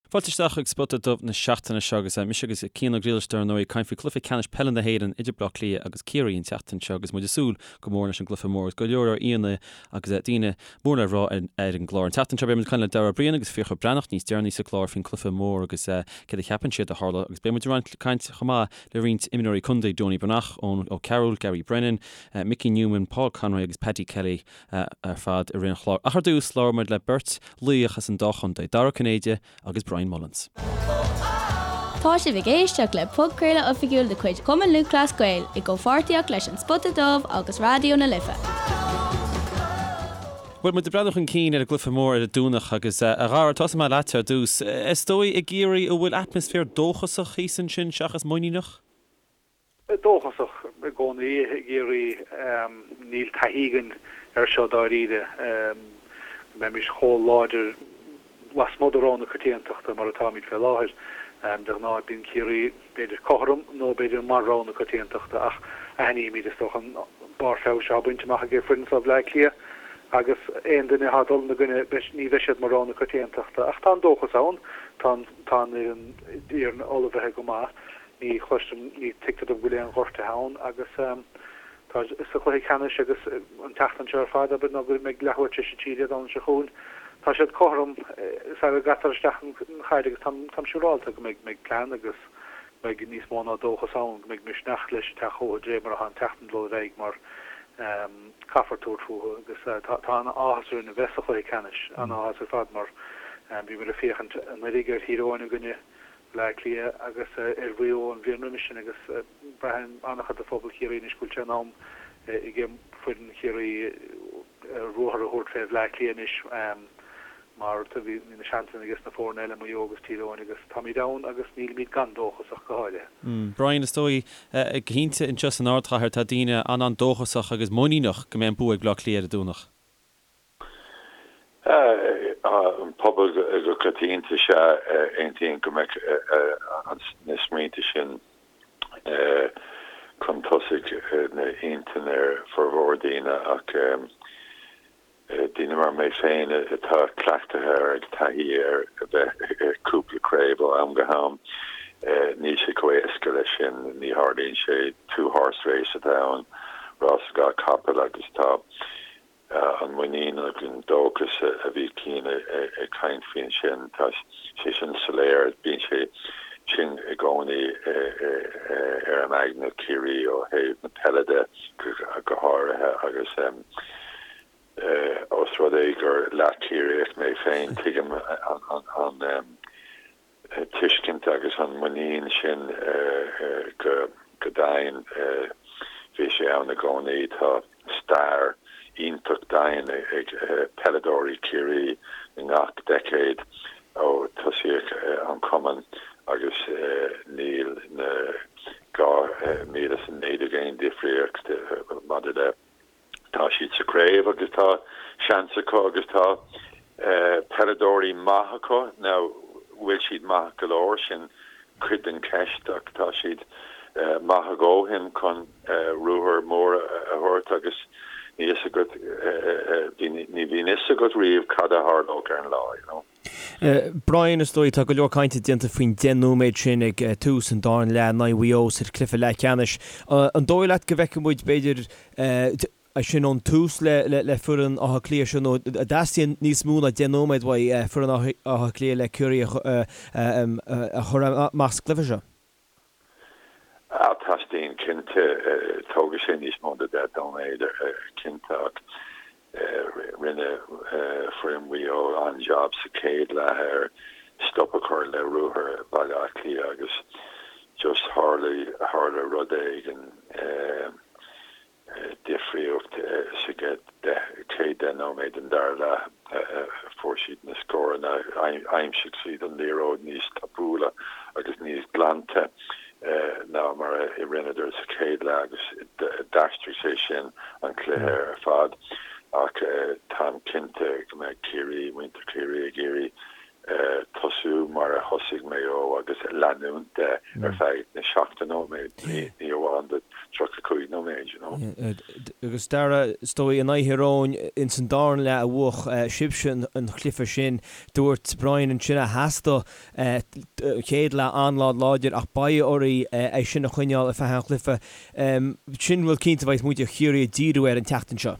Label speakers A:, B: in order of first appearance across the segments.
A: Fáilte isteach chuig Spota Dubh na seachtaine seo agus mise agus Cian Ó Griallais dar ndóigh ag caint faoi chluiche ceannais peile na hÉireann idir Bleá Cliath agus Ciarraí an tseachtain seo agus muid ag súil go mór leis an gcluiche mór agus go leor leor aíonna agus daoine mór le rá ar an gclár. An tseachtain seo beidh muid ag caint le Dara Ó Briain agus Fiachra Breathnach níos deireanaí sa chlár faoin gcluiche mór agus céard a cheapann siad a tharla agus beidh muid ag caint chomh maith le roinnt imreoirí contae, Donie Breathnach, Eoin O'Carroll, Gary Brennan, Mickey Newman, Paul Conroy agus Paddy Kelly ar fad i rith an chláir. Ach ar dtús, labhróidh muid le beirt laoch as an dá chontae, Dara Ó Cinnéide agus Brian Mullins.
B: Tá sibh ag éisteacht le podchraoladh oifigiúil de chuid Chumann Lúthchleas Gael i gcomhpháirtíocht leis An Spota Dubh agus Raidió na Life.
A: Bhuel, muid ag breathnú chun cinn ar an gcluiche mór ar an Domhnach agus, a Dhara, tosóidh mé leatsa ar dtús. Is dóigh i gCiarraí an bhfuil atmaisféar dóchasach thíos ansin seachas muiníneach?
C: Dóchasach i gcónaí i gCiarraí. Níl taithí againn air seo dáiríre, go mbeimis chomh láidir lasmuigh de rogha na coitiantachta mar atáimid fé láthair. De ghnáth bíonn Ciarraí b'fhéidir cothrom nó b'fhéidir mar rogha na coitiantachta ach aithnímid, is dócha, an barr feabhais atá bainte amach ag foireann seo Bhaile Átha Cliath agus aon duine atá ag dul ina gcoinne, ní bheidh siad mar rogha na coitiantachta. Ach tá an dóchas ann, tá an fhoireann ullmhaithe go maith. Ní chloisim, ní tuigtear dom go bhfuil aon ghortuithe ann agus tá sa chluiche ceannais agus an tseachtain seo ar fad, abair, nó go mbeidh leathuair tar éis a 3 Dé Domhnaigh seo chugainn, tá siad cothrom sara gcaitear isteach an chaid agus táim siúrálta go mbeidh mbeidh plean agus go mbeidh níos mó ná dóchas ann, go mbeidh misneach leis ag teacht chucu de réir mar atá an tseachtain ag dul ar aghaidh mar caithfear tabhairt fúthu agus tá an-áthas orainn a bheith sa chluiche ceannais, an-áthas ar fad mar bhíomar ag féachaint anuraidh ar Thír Eoghain i gcoinne Bhaile Átha Cliath agus ar Mhaigh Eo an bhliain roimis sin agus braitheann an-chuid de phobal Chiarraí anois go bhfuil sé in am ag foireann Chiarraí ruathar a thabhairt fé Bhaile Átha Cliath anois mar bhí na seansanna aige sna foirne eile, Maigh Eo agus Tír Eoghain agus táimid ann agus nílimid gan dóchas ach go háirithe.
A: Brian, is dóigh, go cinnte anseo san ardchathair tá daoine an-an-dóchasach agus muiníneach go mbeidh an bua ag Bleá Cliath ar an Domhnach.
D: An pobal go coitianta sea, aontaím go mbeadh na smaointe sin chun tosaigh ina intinn ar formhór daoine ach daoine mar mé féin atá cleachtaithe ar ag taithí ar a bheith i cúpla craobh ó am go ham, níl sé chomh éasca leis sin, ní tharlaíonn sé, two horse race atá ann, rás dhá capall agus tá An muinín agus an dóchas a bhí Cian ag caint faoi ansin, tá sé sin soiléir, bíonn sé sin i gcónaí ar an aigne Ciarraí ó thaobh na peile de go háirithe agus ós rud é gur leath-Chiarraíoch mé féin, tuigim an tuiscint agus an muinín sin go domhain. Bhí sé ann i gcónaí. Tá stair iontach domhain ag peileadóirí Chiarraí i ngach deicéad ó tosaíodh an cumann agus níl na 2019 aon difríocht maidir le Tá siad sa chraobh agus tá seans acu agus tá peileadóirí maith acu. Now, bhfuil siad maith go leor? Sin cuid den cheist ach tá siad maith a dhóthain chun ruathar mór a thabhairt agus ní fhios agat, ní bhíonn fhios agat riamh cad a tharlódh ar an lá, you know.
E: Brian, is dóigh, tá go leor cainte déanta faoin 10 nóiméad sin ag tús an dara leath in aghaidh Mhaigh Eo sa chluiche leathcheannais. An dóigh leat go bhfeicfidh muid, b'fhéidir, é sin ón tús le foireann Átha Cliath seo nó an dteastaíonn níos mó ná 10 nóiméad uaidh foireann Átha Cliath le Ciarraí a chur amach sa gcluiche seo?
D: Ah, teastaíonn cinnte. Tógfaidh sé níos mó ná 10 nóiméad cinnte ach rinne foireann Mhaigh Eo an-jab sa chéad leath ar stop a chur le ruathar Bhaile Átha Cliath agus just tharla, tharla rud éigin. Difríocht sa gcéad 10 nóiméad den dara leath, fuair siad na scóranna, aimsigh siad an liathróid níos tapúla agus níos glanta ná mar a rinneadar sa chéad leath agus d'aistrigh sé sin an cluiche ar fad. Ach táim cinnte go mbeidh Ciarraí, muintir Chiarraí ag iarraidh tosú mar a thosaigh Maigh Eo agus leanúint de ar feadh na 70 nóiméad, ní amháin do. 35 nóiméad, you know.
E: Agus Dara, is dóigh, in aghaidh Thír Eoghain ins an darna leath a bhuach sibhse an cluiche sin. Dúirt Brian ansin a theastaigh an chéad leath an-láidir ach beidh oraibh é sin a choinneáil ar feadh an chluiche. Sin rud cinnte a bheidh muintir Chiarraí ag díriú air an tseachtain seo.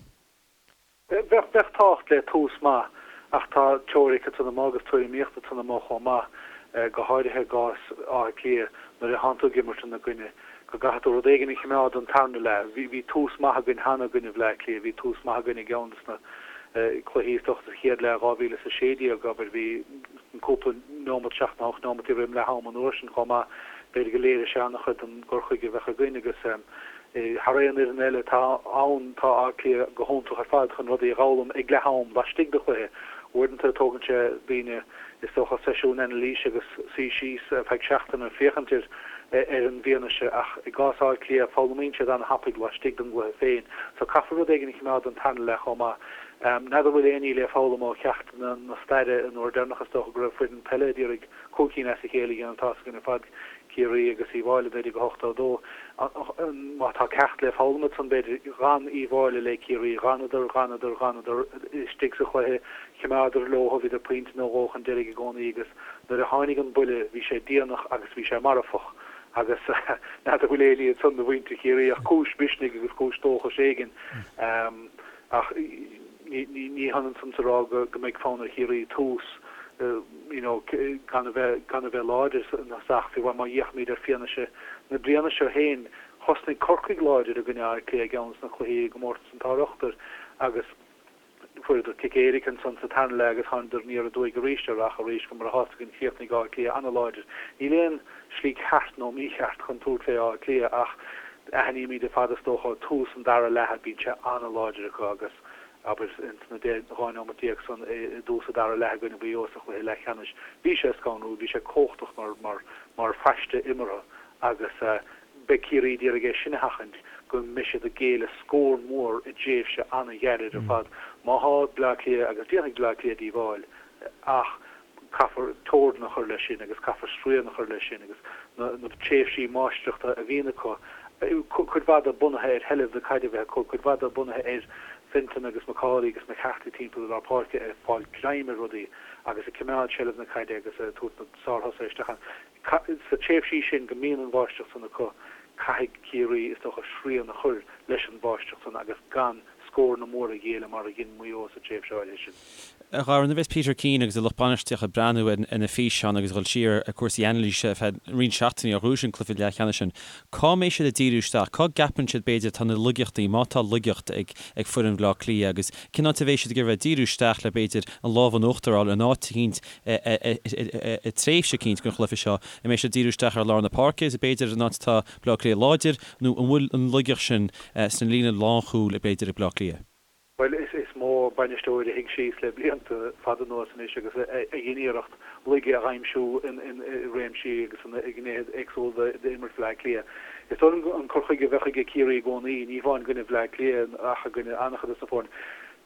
C: Bheadh tábhacht le tús maith ach tá teoiric ansan amuigh agus tuairimíocht ansan amuigh chomh maith, go háirithe i gcás Átha Cliath nuair a thánn tú ag imirt ina gcoinne, go gcaithfidh tú rud éigin a choimeád don tarna leath. Bhí tús maith againn cheana i gcoinne Bhleá Cliath, bhí tús maith againn i gceann des na cluichí is dócha sa chéad leath 2016, abair, bhí cúpla neomat, seacht nó hocht neomat roim leath am an uair sin chomh maith. B'fhéidir go léirigh sé an-chuid den gcur chuige a bheadh againn agus thar aon fhoireann eile atá ann, tá Áth Cliath go hiontach ar fad chun rudaí a dh'fhoghlaim ag leath am laistigh de chluiche. Uaireanta tógann sé daoine, is dócha, seisiún anailíse agus suí síos ar feadh seachtaine féachaint ar ar an bhfianaise ach i gcás Átha Cliath foghlaimíonn siad an-thapaidh laistigh den gcluiche féin. So caithfear rud éigin a choimeád don tarna leath chomh maith. N'fheadar an bhfuil aon ní le foghlaim ó cheachtanna na staire an uair deireanach is dócha go raibh foireann peile a d'iarraidh cúig cinn as a chéile a dhéanamh tá's againn ar fad Ciarraí agus Uíbh Fhailí 1982. Má tá ceacht le foghlaim ansan b'fhéidir, d'fhan Uíbh Fhailí le Ciarraí, d'fhanadar, d'fhanadar, d'fhanadar istigh sa chluiche, choimeádar leo, bhíodar pointe nó dhó chun deiridh i gcónaí agus nuair a tháinig an buille bhí sé déanach agus bhí sé marfach agus n'fheadar an bhfuil aon ní ansan do mhuintir Chiarraí ach cúis mhisnigh agus cúis dóchais éigin. Ach ní hionann san is a rá go mbeidh fonn ar Chiarraí tús you know gan a bheith gan a bheith láidir ina ach fiú má fhéachaimid ar fianaise na bliana seo féin, thosnaigh Corcaigh láidir i gcoinne Átha Cliath i gceann des na cluichí i gcomórtas an tSár-Ochtair agus fuaireadar cic éirice ansan sa tarna leath agus thánadar aniar aduaidh arís ar ach arís go mar atá againn chríochnaigh Áth Cliath an-láidir. Níl aon slí ceart nó mícheart chun tabhairt fé Áth Cliath ach Aithnímid ar fad is dócha tús an dara leatha, bíonn sé an-láidir acu agus, abair, ins na 12 neomat san i dtús an dara leath i gcoinne Mhaigh Eo sa chluiche leathcheannais, bhí sé scanrúil, bhí sé cumhachtach mar, mar, mar phaiste imeartha agus beidh Ciarraí d'iarraidh é sin a sheachaint, go mbeidh siad ag géilleadh scór mór i dtréimhse an-ghairid ar fad. Má thá Bleá Cliath, agus déanfaidh Bleá Cliath díobháil, ach caithfear teorainn a chur leis sin agus caithfear srian a chur leis sin agus na tréimhsí máistreachta a bhíonn acu, cuid mhaith de bunaithe ar sheilbh na caide a bheith acu, cuid mhaith de bunaithe ar Fenton agus McAuley agus McCarthy timpeall i lár páirce ag fáil greim ar rudaí agus ag coimeád seilbh na caide agus ag tabhairt na sárthosaithe isteach ann. Sna tréimhsí sin go mbíonn an mháistreacht san acu, caithfidh Ciarraí, is dócha, srian a chur leis an mháistreacht san agus gan scóranna móra a ghéilleadh mar a dhein Maigh Eo sa tréimhse áirithe sin.
A: A Dhara, nuair a bheas Peter Keane agus a lucht bainistíochta ag breathnú ar na físeáin agus ag dul siar ar chúrsaí anailíse ar feadh roinnt seachtainí ó ghnóthaigh an cluiche leathcheannais sin, cá mbeidh siad ag díriú isteach? Cá gceapann siad, b'fhéidir, atá na laigeachtaí, má tá laigeacht ag foireann Bhaile Átha Cliath agus cén áit a bheidh siad ag iarraidh bheith ag díriú isteach le, b'fhéidir, an lámh in uachtar a fháil in áit eicínt i dtréimhse eicínt den chluiche seo? An mbeidh siad ag díriú isteach ar lár na páirce, b'fhéidir, an áit atá Bleá Cliath láidir, nó an bhfuil an laigeacht sin sna líne lánchúil, b'fhéidir, ag Bleá Cliath?
C: Bhuel, is mó bainisteoir a shuigh síos le blianta fada anuas anois agus a dhein iarracht laige a aimsiú i réimsí agus i ngnéithe éagsúla d'imirt Bhleá Cliath. Is dóigh liom an cur chuige a bheadh aige Ciarraí i gcónaí, ní hamháin i gcoinne Bhleá Cliath ach i gcoinne an-chuid de na foirne,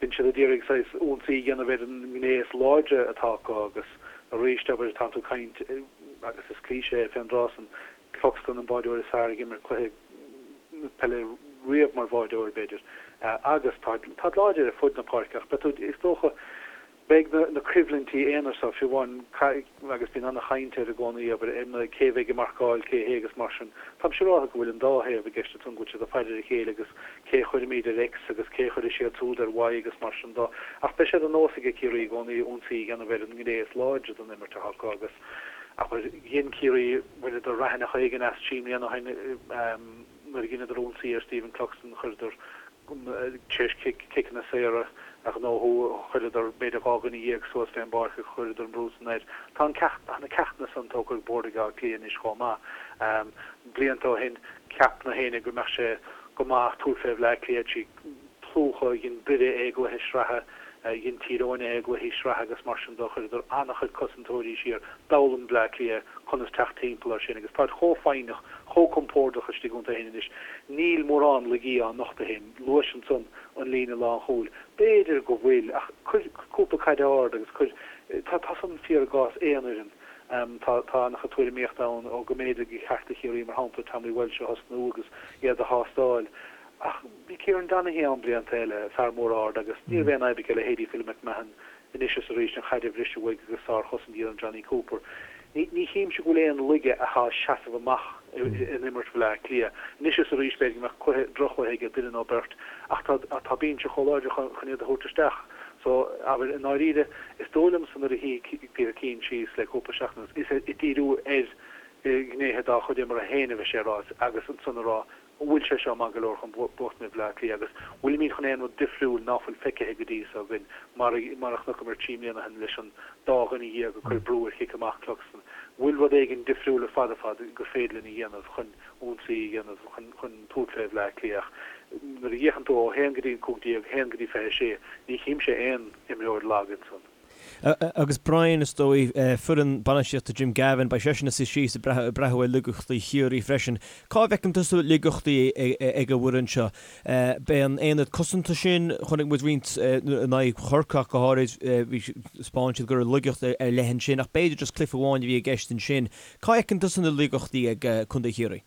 C: bíonn siad ag iarraidh saghas ionsaí a dhéanamh ar an ngné is láidre atá acu agus arís, abair, tánn tú ag caint, agus is cliché é fén dtráth san, Cluxton an báireoir is fearr ag imirt cluiche peile riamh mar bháireoir, b'fhéidir, agus táid láidir ar fud na páirce ach beidh tú, is dócha, beidh na coimhlintí aonair so, fiú amháin, agus bíonn an-chaint air i gcónaí, abair, ar cé a bheidh ag marcáil cé hé agus mar sin. Táim siúráltha go bhfuil an dá thaobh i gceist ansan, go bhfuil siad ag faire ar a chéile agus cé a chuirfimid ar X agus cé a chuirfidh siad siúd ar Y agus mar sin dó. Ach beidh sé de nós aige Ciarraí i gcónaí ionsaí a dhéanamh ar an ngné is láidre den imirt atá acu agus, Abair, dhein Ciarraí, bhaineadar raithneach éigin as trí mbliana ó shin nuair a dheineadar ionsaí ar Stephen Cluxton, chuireadar, tar éis ciceanna saora a ghnóthú, chuireadar b'fhéidir 12 dhuine suas fén bpáirc agus chuireadar an brú san air. Tá an ceacht, tá na ceachtanna san tógtha ar bord ag Áth Cliath anois chomh maith. Blianta ó shin, cheap na héinne go mbeadh sé go maith tabhairt fé Bhleá Cliath trí plúchadh, dhein Doire é i gcluiche sraithe, dhein Tír Eoghain é i gcluichí sraithe agus mar sin de, chuireadar an-chuid cosantóirí siar, d'fhoghlaim Bleá Cliath conas teacht timpeall air sin agus táid chomh foighneach, chomh compordach istigh iontu féin anois. Níl mórán laigí á nochtadh féin. Luais ansan an líne lánchúil. B'fhéidir go bhfuil, ach cuir cúpla caid ard agus cuir, tá, tá san fíor i gcás aon fhoireann. Tá tá an-chuid tuairimíochta ann ó go mb'fhéidir gur cheart do Chiarraí, mar shampla, Tommy Walsh a thosnú agus iad a thástáil. Ach bhí Kieran Donaghy ann blianta eile, fear mór ard, agus ní raibh aon fhadhb aige leithéidí Philly McMahon anois is arís an chaid a bhriseadh uaidh agus sárchosaint a dhéanamh Jonny Cooper. Ní ní chímse go bhfuil aon laige atá ag seasamh amach in imirt Bhaile Átha Cliath. Anois is arís b'fhéidir go mbeadh cluiche, droch-chluiche aige duine nó beirt ach tá tá binse chomh láidir chun chun iad a thabhairt isteach. So, abair, i ndáiríre, is dóigh liomsa nuair a shuigh Peter Keane síos le cúpla seachtain anuas, is ag díriú ar ghnéithe dá chuid imeartha féin a bhí sé a rá agus ansan a rá an bhfuil sé seo maith go leor chun buachtaint ar Bhaile Átha Cliath agus bhfuilimid chun aon rud difriúil ná fuil feicthe go dtí so againn mar mar a chonaiceamar 3 mbliana ó shin leis an dá dhuine dhéag ag cur brú ar chic amach Cluxton. Bhfuil rud éigin difriúil ar fad ar fad gur féidir linn a dhéanamh chun ionsaí a dhéanamh chun chun tabhairt fé Bhaile Átha Cliath ach nuair a fhéachann tú ó 1 go dtí 15, 1 go dtí 26, ní chímse aon imreoir lag ansan.
E: Agus Brian, is dóigh, foireann bainistíochta Jim Gavin, beidh seisean ina suí síos ag breathnú ar laigeachtaí Chiarraí freisin. Cá bhfeiceann tusa laigeachtaí ag an bhfoireann seo? Beidh an aonad cosanta sin, chonaic muid roinnt in aghaidh Chorcaí ach go háirid, bhí, thaispeáin siad go raibh laigeacht ar leith ansin ach b'fhéidir just cluiche amháin a bhí i gceist ansin. Cá bhfeiceann tusa na laigeachtaí ag Contae Chiarraí?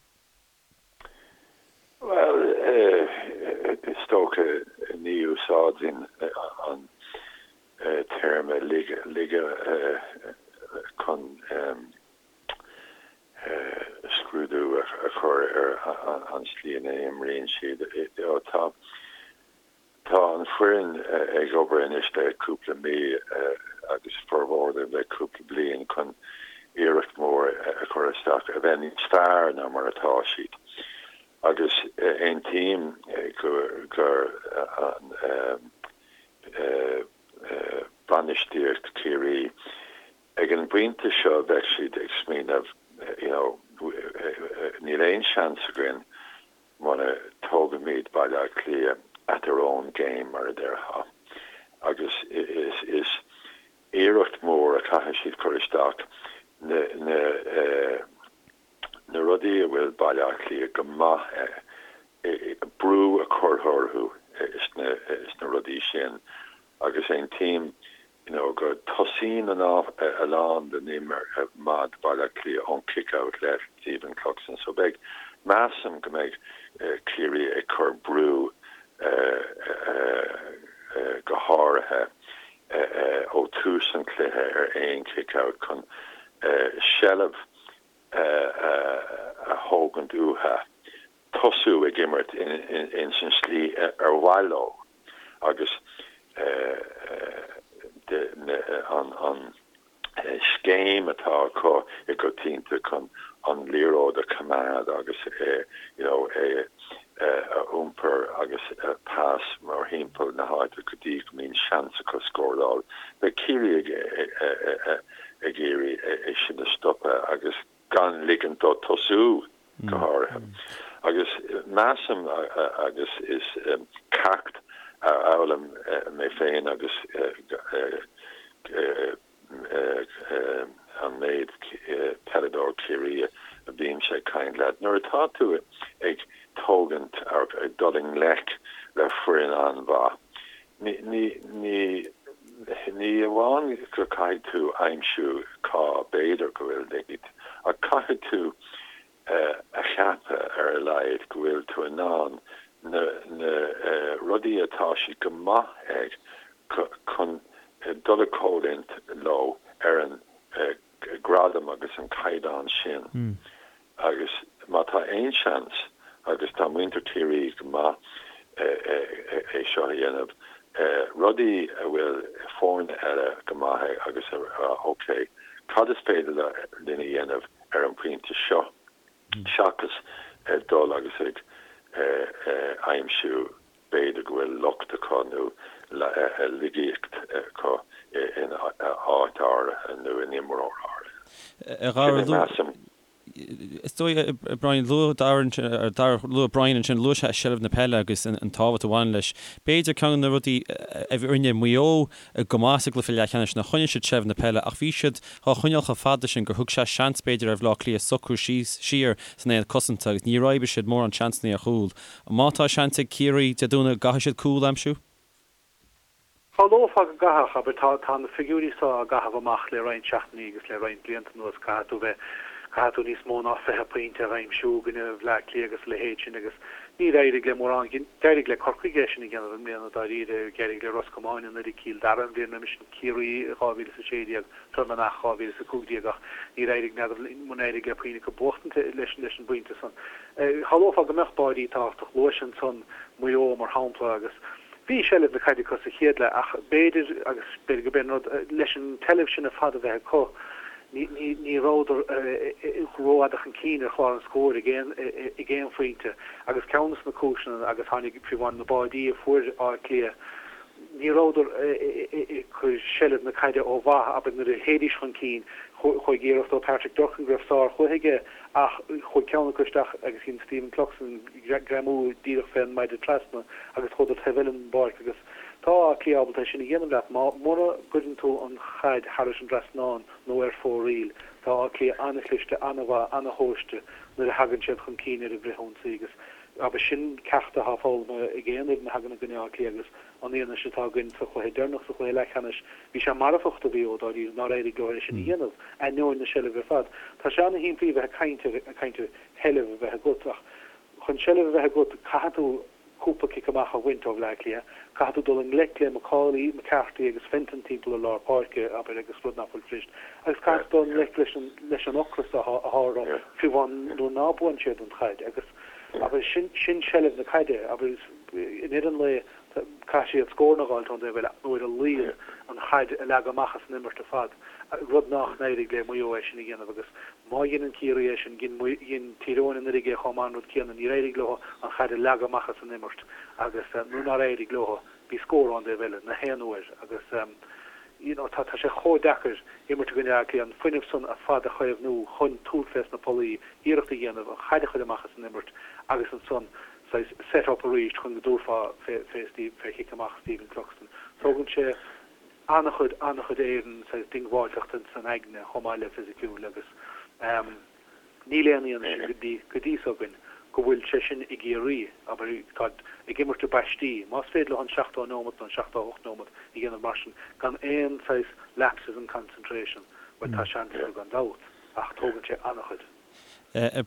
D: Bhuel, is dócha ní úsáidfinn an téarma laige chun scrúdú a chur ar an slí ina n-imríonn siad. Tá Tá an foireann ag obair anois le cúpla mí agus formhór de le cúpla bliain chun iarracht mhór a chur isteach a bheith níos fearr ná mar atá siad agus aontaím gur an bainistíocht Chiarraí ag an bpointe seo bheadh siad ag smaoineamh you know níl aon seans againn muna dtógaimid Baile Átha Cliath at their own game, mar a déarfá. Agus is iarracht mhór a chaithfidh siad cur isteach, na na rudaí a bhfuil Baile Átha Cliath go maith brú a chur orthu sna rudaí sin. Agus aontaím you know go tosaíonn a lán den imirt maith Baile Átha Cliath ón kick out le Stephen Cluxton so beidh, measaim go mbeidh Ciarraí ag cur brú go háirithe ó tús an chluiche ar aon kick out chun seilbh a thógaint uathu. tosú ag imirt ins an slí ar mhaith leo agus an scéim atá acu i gcoitianta chun an liathróid a choimeád agus you know é a iompar agus pas mórthimpeall na háite go dtí go mbíonn seans acu scóráil. Beidh Ciarraí ag iarraidh é sin a stopadh agus gan ligint dó tosú, go háirithe. Agus measaim, agus is ceacht a fhoghlaim mé féin agus an méid peileadóir Ciarraí a bhímse ag caint leat, nuair atá tú ag tógaint, ag dul i ngleic le foireann an-mhaith, Ní, ní, ní amháin go caithfidh tú aimsiú cá b'fhéidir go bhfuil laigeacht, ach caithfidh tú a cheapadh ar a laghad go bhfuil tú in ann na, na rudaí atá siad go maith ag chun dul i gcoimhlint leo ar an gradam agus an caighdeán sin. Agus má tá aon seans, agus tá muintir Chiarraí go maith é seo a dhéanamh, rudaí a bhfuil foirne eile go maith ag agus a rá ok, cad is féidir linn a dhéanamh ar an bpointe seo seachas dul agus ag aimsiú b'fhéidir go bhfuil locht acu nó laigeacht acu in áit áirithe nó in imreoir áirithe.
A: Sin é, measaim. Is dóigh, Brian, luaigh Darragh, luaigh Brian ansin, luaigh sé seilbh na peile agus an tábhacht a bhaineann leis. B'fhéidir ceann de na rudaí a rinne Maigh Eo go maith sa gcluiche leathcheannais ná choinnigh siad seilbh na peile ach bhí siad á choinneáil chomh fada sin gur thug sé seans b'fhéidir ar Bhaile Átha Cliath socrú síos siar san aonad cosanta agus níor oibrigh siad mórán seansanna ar chúl. Má tá seans ag Ciarraí Dé Domhnaigh, an gcaithfidh siad cúl a aimsiú?
C: Shamhlófá go gcaithfeadh, abair, tá, tá na figiúirí so á gcaitheamh amach le roinnt seachtainí agus le roinnt blianta anuas, caithfidh tú bheith, caithfidh tú níos mó ná 20 pointe a aimsiú i gcoinne Bhleá Cliath agus a leithéid sin agus níor éirigh le mórán, d'éirigh le Corcaigh é sin a dhéanamh i mbliana dáiríre, d'éirigh le Ros Comáin anuraidh, Cill Dara an bhliain roimis sin, Ciarraí i 2016, Fear Manach 2015 ach níor éirigh, n'fheadar an éirigh le puinn acu buachtaint leis an bpointe san. Shamhlófá go mbeadh báidí tábhachtach, luais ansan Maigh Eo mar shampla agus, Bhí seilbh na caide acu sa chéad leath ach b'fhéidir, agus b'fhéidir gurb é an rud, leis an tseilbh sin ar fad a bheith acu, ní, ní, ní rabhadar rófhada chun cinn ar chlár an scóir ag aon, ag aon phointe. Agus ceann de na cúiseanna, agus tháinig, fiú amháin na báidí a fuair Áth Cliath, ní rabhadar ag cur seilbh na caide ó mhaith, abair nuair a théidís chun cinn, chuaigh iarracht ó Patrick Durcan go raibh sárchluiche aige ach chuaigh ceann acu isteach agus dhein Stephen Cluxton greamú díreach fén maide trasna agus chuadar taobh eile den bpáirc agus tá Áth Cliath ábalta é sin a dhéanamh leat má, mura gcuireann tú an chaid thairis an dtrasnán nó ar fóraoil. Tá Áth Cliath an-chliste, an-mhaith, an-thomhaiste nuair a thagann siad chun cinn ar an bhfrithionsaí agus abair sin ceacht atá foghlamtha ag aon fhoireann a thagann i gcoinne Átha Cliath agus an fhianaise atá againn sa chluiche deireanach, sa chluiche leathcheannais, bhí sé marfach do Mhaigh Eo dáiríre nár éirigh leo é sin a dhéanamh, ainneoin na seilbhe ar fad. Tá sé an-shimplí a bheith ag caint ar, ag caint ar sheilbh a bheith agat ach chun seilbh a bheith agat caithfidh tú cúpla cic amach a bhaint ó Bhleá Cliath, caithfidh tú dul i ngleic le McAuley, McCarthy agus Fenton timpeall ar lár páirce, abair, agus rud nach bhfuil fuirist, agus caithfidh tú dul i ngleic leis an, leis an ocras atá, atá orthu, fiú amháin nuair ná buann siad an chaid agus, abair, sin, sin seilbh na caide, abair, i ndeireadh an lae, caithfidh siad scóranna a dh'fháilt ón dtaobh eile nó ar a laghad an chaid a leagadh amach as an imirt ar fad, rud nach n-éirigh le Maigh Eo é sin a dhéanamh agus má dheineann Ciarraí é sin, dhein Tír Eoghain anuraidh é chomh maith an rud céanna, níor éirigh leo an chaid a leagadh amach as an imirt agus nuair nár éirigh leo, bhí scór ón dtaobh eile na haon uair agus you know tá sé chomh deacair imirt i gcoinne Átha Cliath, an fuinneamh san ar fad a chaomhnú chun tabhairt fés na pollaí, iarracht a dhéanamh an chaid a chur amach as an imirt agus ansan saghas set up arís chun go dtabharfá fé fé Steve fé chic amach Stephen Cluxton. Tógann sé an-chuid an-chuid éireann saghas diongbháilteachta san aigne chomh maith le fisiciúil agus ehm níl aon fhianaise go dtí go dtí so againn go bhfuil sé sin i gCiarraí abair tá ag imirt i bpaistí más féidir leo an 70 neomat nó an 78 neomat a dhéanamh mar sin gan aon saghas lapses in concentration bhuel tá seans acu gan dabht ach tógann sé an-chuid.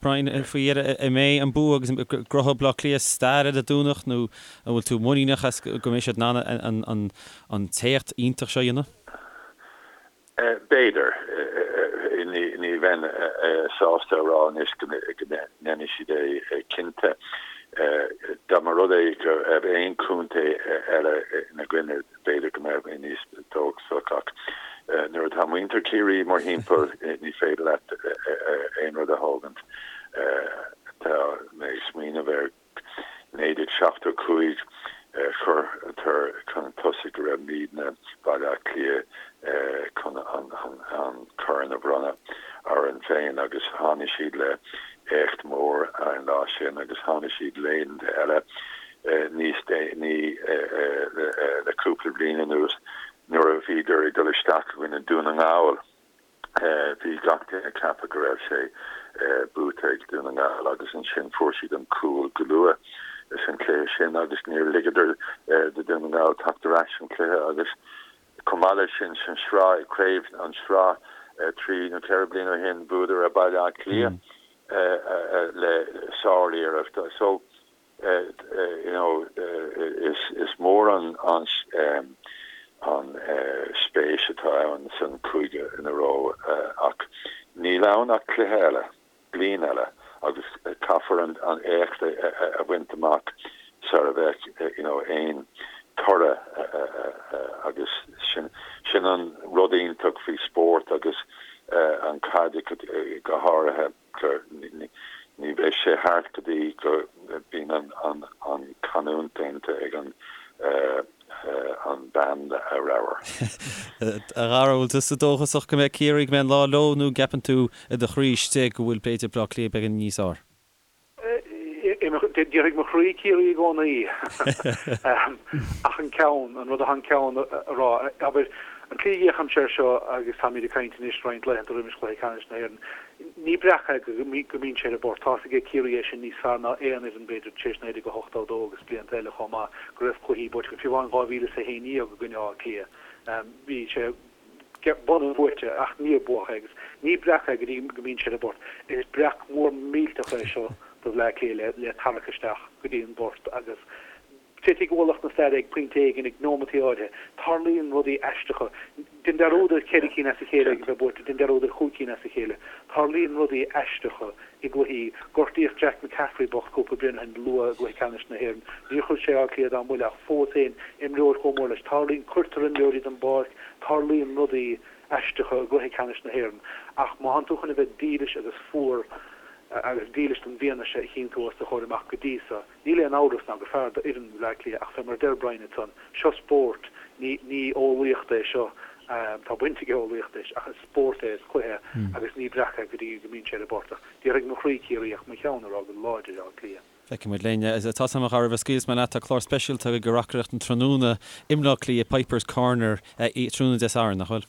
A: Brian, faoi dheireadh, an mbeidh an bua agus an gcruthóidh Baile Átha Cliath stair ar an Domhnach nó an bhfuil tú muiníneach as go mbeidh siad in ann an t-éacht iontach seo a dhéanamh?
D: B'fhéidir. Ní bheinn sásta a rá anois go ndéanfaidh siad é cinnte. Dá mba rud é go raibh aon chontae eile ina gcoinne, B'fhéidir go mbeadh mé níos dóchasach ach nuair atá muintir Chiarraí mórthimpeall ní féidir leat aon rud a thógaint. Tá mé ag smaoineamh ar 1975, chuireadar chun tosaigh go raibh muidne, Baile Átha Cliath, chun an corn a bhronnadh orainn féin agus tháinig siad le éacht mór an lá sin agus tháinig siad laethanta eile níos déanaí le cúpla bliain anuas nuair a bhíodar ag dul isteach i gcoinne Dún na nGall. Bhí gach duine ag ceapadh go raibh sé buaite ag Dún na nGall agus ansin fuair siad an cúl go luath san chluiche sin agus níor ligeadar do Dún na nGall teacht ar ais san chluiche agus chomh maith leis sin san sraith, craobh an sraith 3 nó 4 bliana ó shin bhuadar ar Baile Átha Cliath le sár-iarracht. So you know is mór an an spéis atá ann san cúige ina raibh ach níl ann ach cluiche eile, bliain eile agus caithfear an éacht a bhaint amach sar a bheadh you know aon toradh agus sin sin an rud iontach faoi spórt agus an caid go háirithe. Ní bheidh sé thart go dtí go mbíonn an canúint déanta ag an an band ramhar.
A: A Dhara, bhfuil tusa dóchasach go mbeidh Ciarraí, go mbeidh an lá leo nó an gceapann tú i do chroí istigh go bhfuil b'fhéidir Bleá Cliath beagán níos
C: fhearr? Déarfaidh mo chroí Ciarraí i gcónaí. Ach an ceann, an rud atá an ceann a rá, abair. An tslí a bhféachaimse air seo, agus táimid ag caint anois roinnt laethanta roimis chluiche ceannais na hÉireann, ní breac é go mbíonn sé ar an bport. Tá's aige Ciarraí é sin níos fearr ná aon fhoireann, b'fhéidir, tar éis 1982 agus blianta eile chomh maith, go raibh cluichí buaite acu. Fiú amháin 2011 i gcoinne Átha Cliath, bhí sé bun buaite ach níor buadh é agus ní breac é go dtí go mbíonn sé ar an bport. Is breac mór millteach é seo do Bhleá Cliath le tarrac isteach go dtí an bport agus Titfidh ualach na staire ag pointe éigin ag nóimeataí áirithe. Tarlaíonn rudaí aisteacha. Déan dearúd ar cheithre cinn as a chéile ag a bheith buaite, déan dearúd ar chúig cinn as a chéile. Tarlaíonn rudaí aisteacha i gcluichí. Gortaíodh Jack McCaffrey bocht cúpla bliain ó shin luath i gcluiche ceannais na hÉireann. Níor chuir sé Áth Cliath dá mbuille ach fós féin, imreoir chomh mór leis. Tarlaíonn, cuirtear imreoirí den bpáirc, tarlaíonn rudaí aisteacha i gcluiche ceannais na hÉireann. Ach má thánn tú chun a bheith dílis agus fuar agus dílis don bhfianaise a chíonn tú os do chomhair amach go dtí so, Níl aon amhras ná gur fearr d'fhoireann Bhleá Cliath ach fé mar a deir Brian ansan, seo spórt, ní, ní eolaíocht é seo, tá baint ag eolaíocht leis ach is spórt é, is cluiche é agus ní breac é go dtí go mbíonn sé ar an bport ach déarfaidh mo chroí Ciarraí ach mo cheann ag rá go láidir Áth Cliath.
A: Feicfidh muid linn. Tá a fhios agam a roimh a scaoilfeas mé leat, tá clár speisialta agaibh ag reacaireacht an tráthnóna i mBleá Cliath, Pipers Corner, tráthnóna Dé Sathairn, nach bhfuil?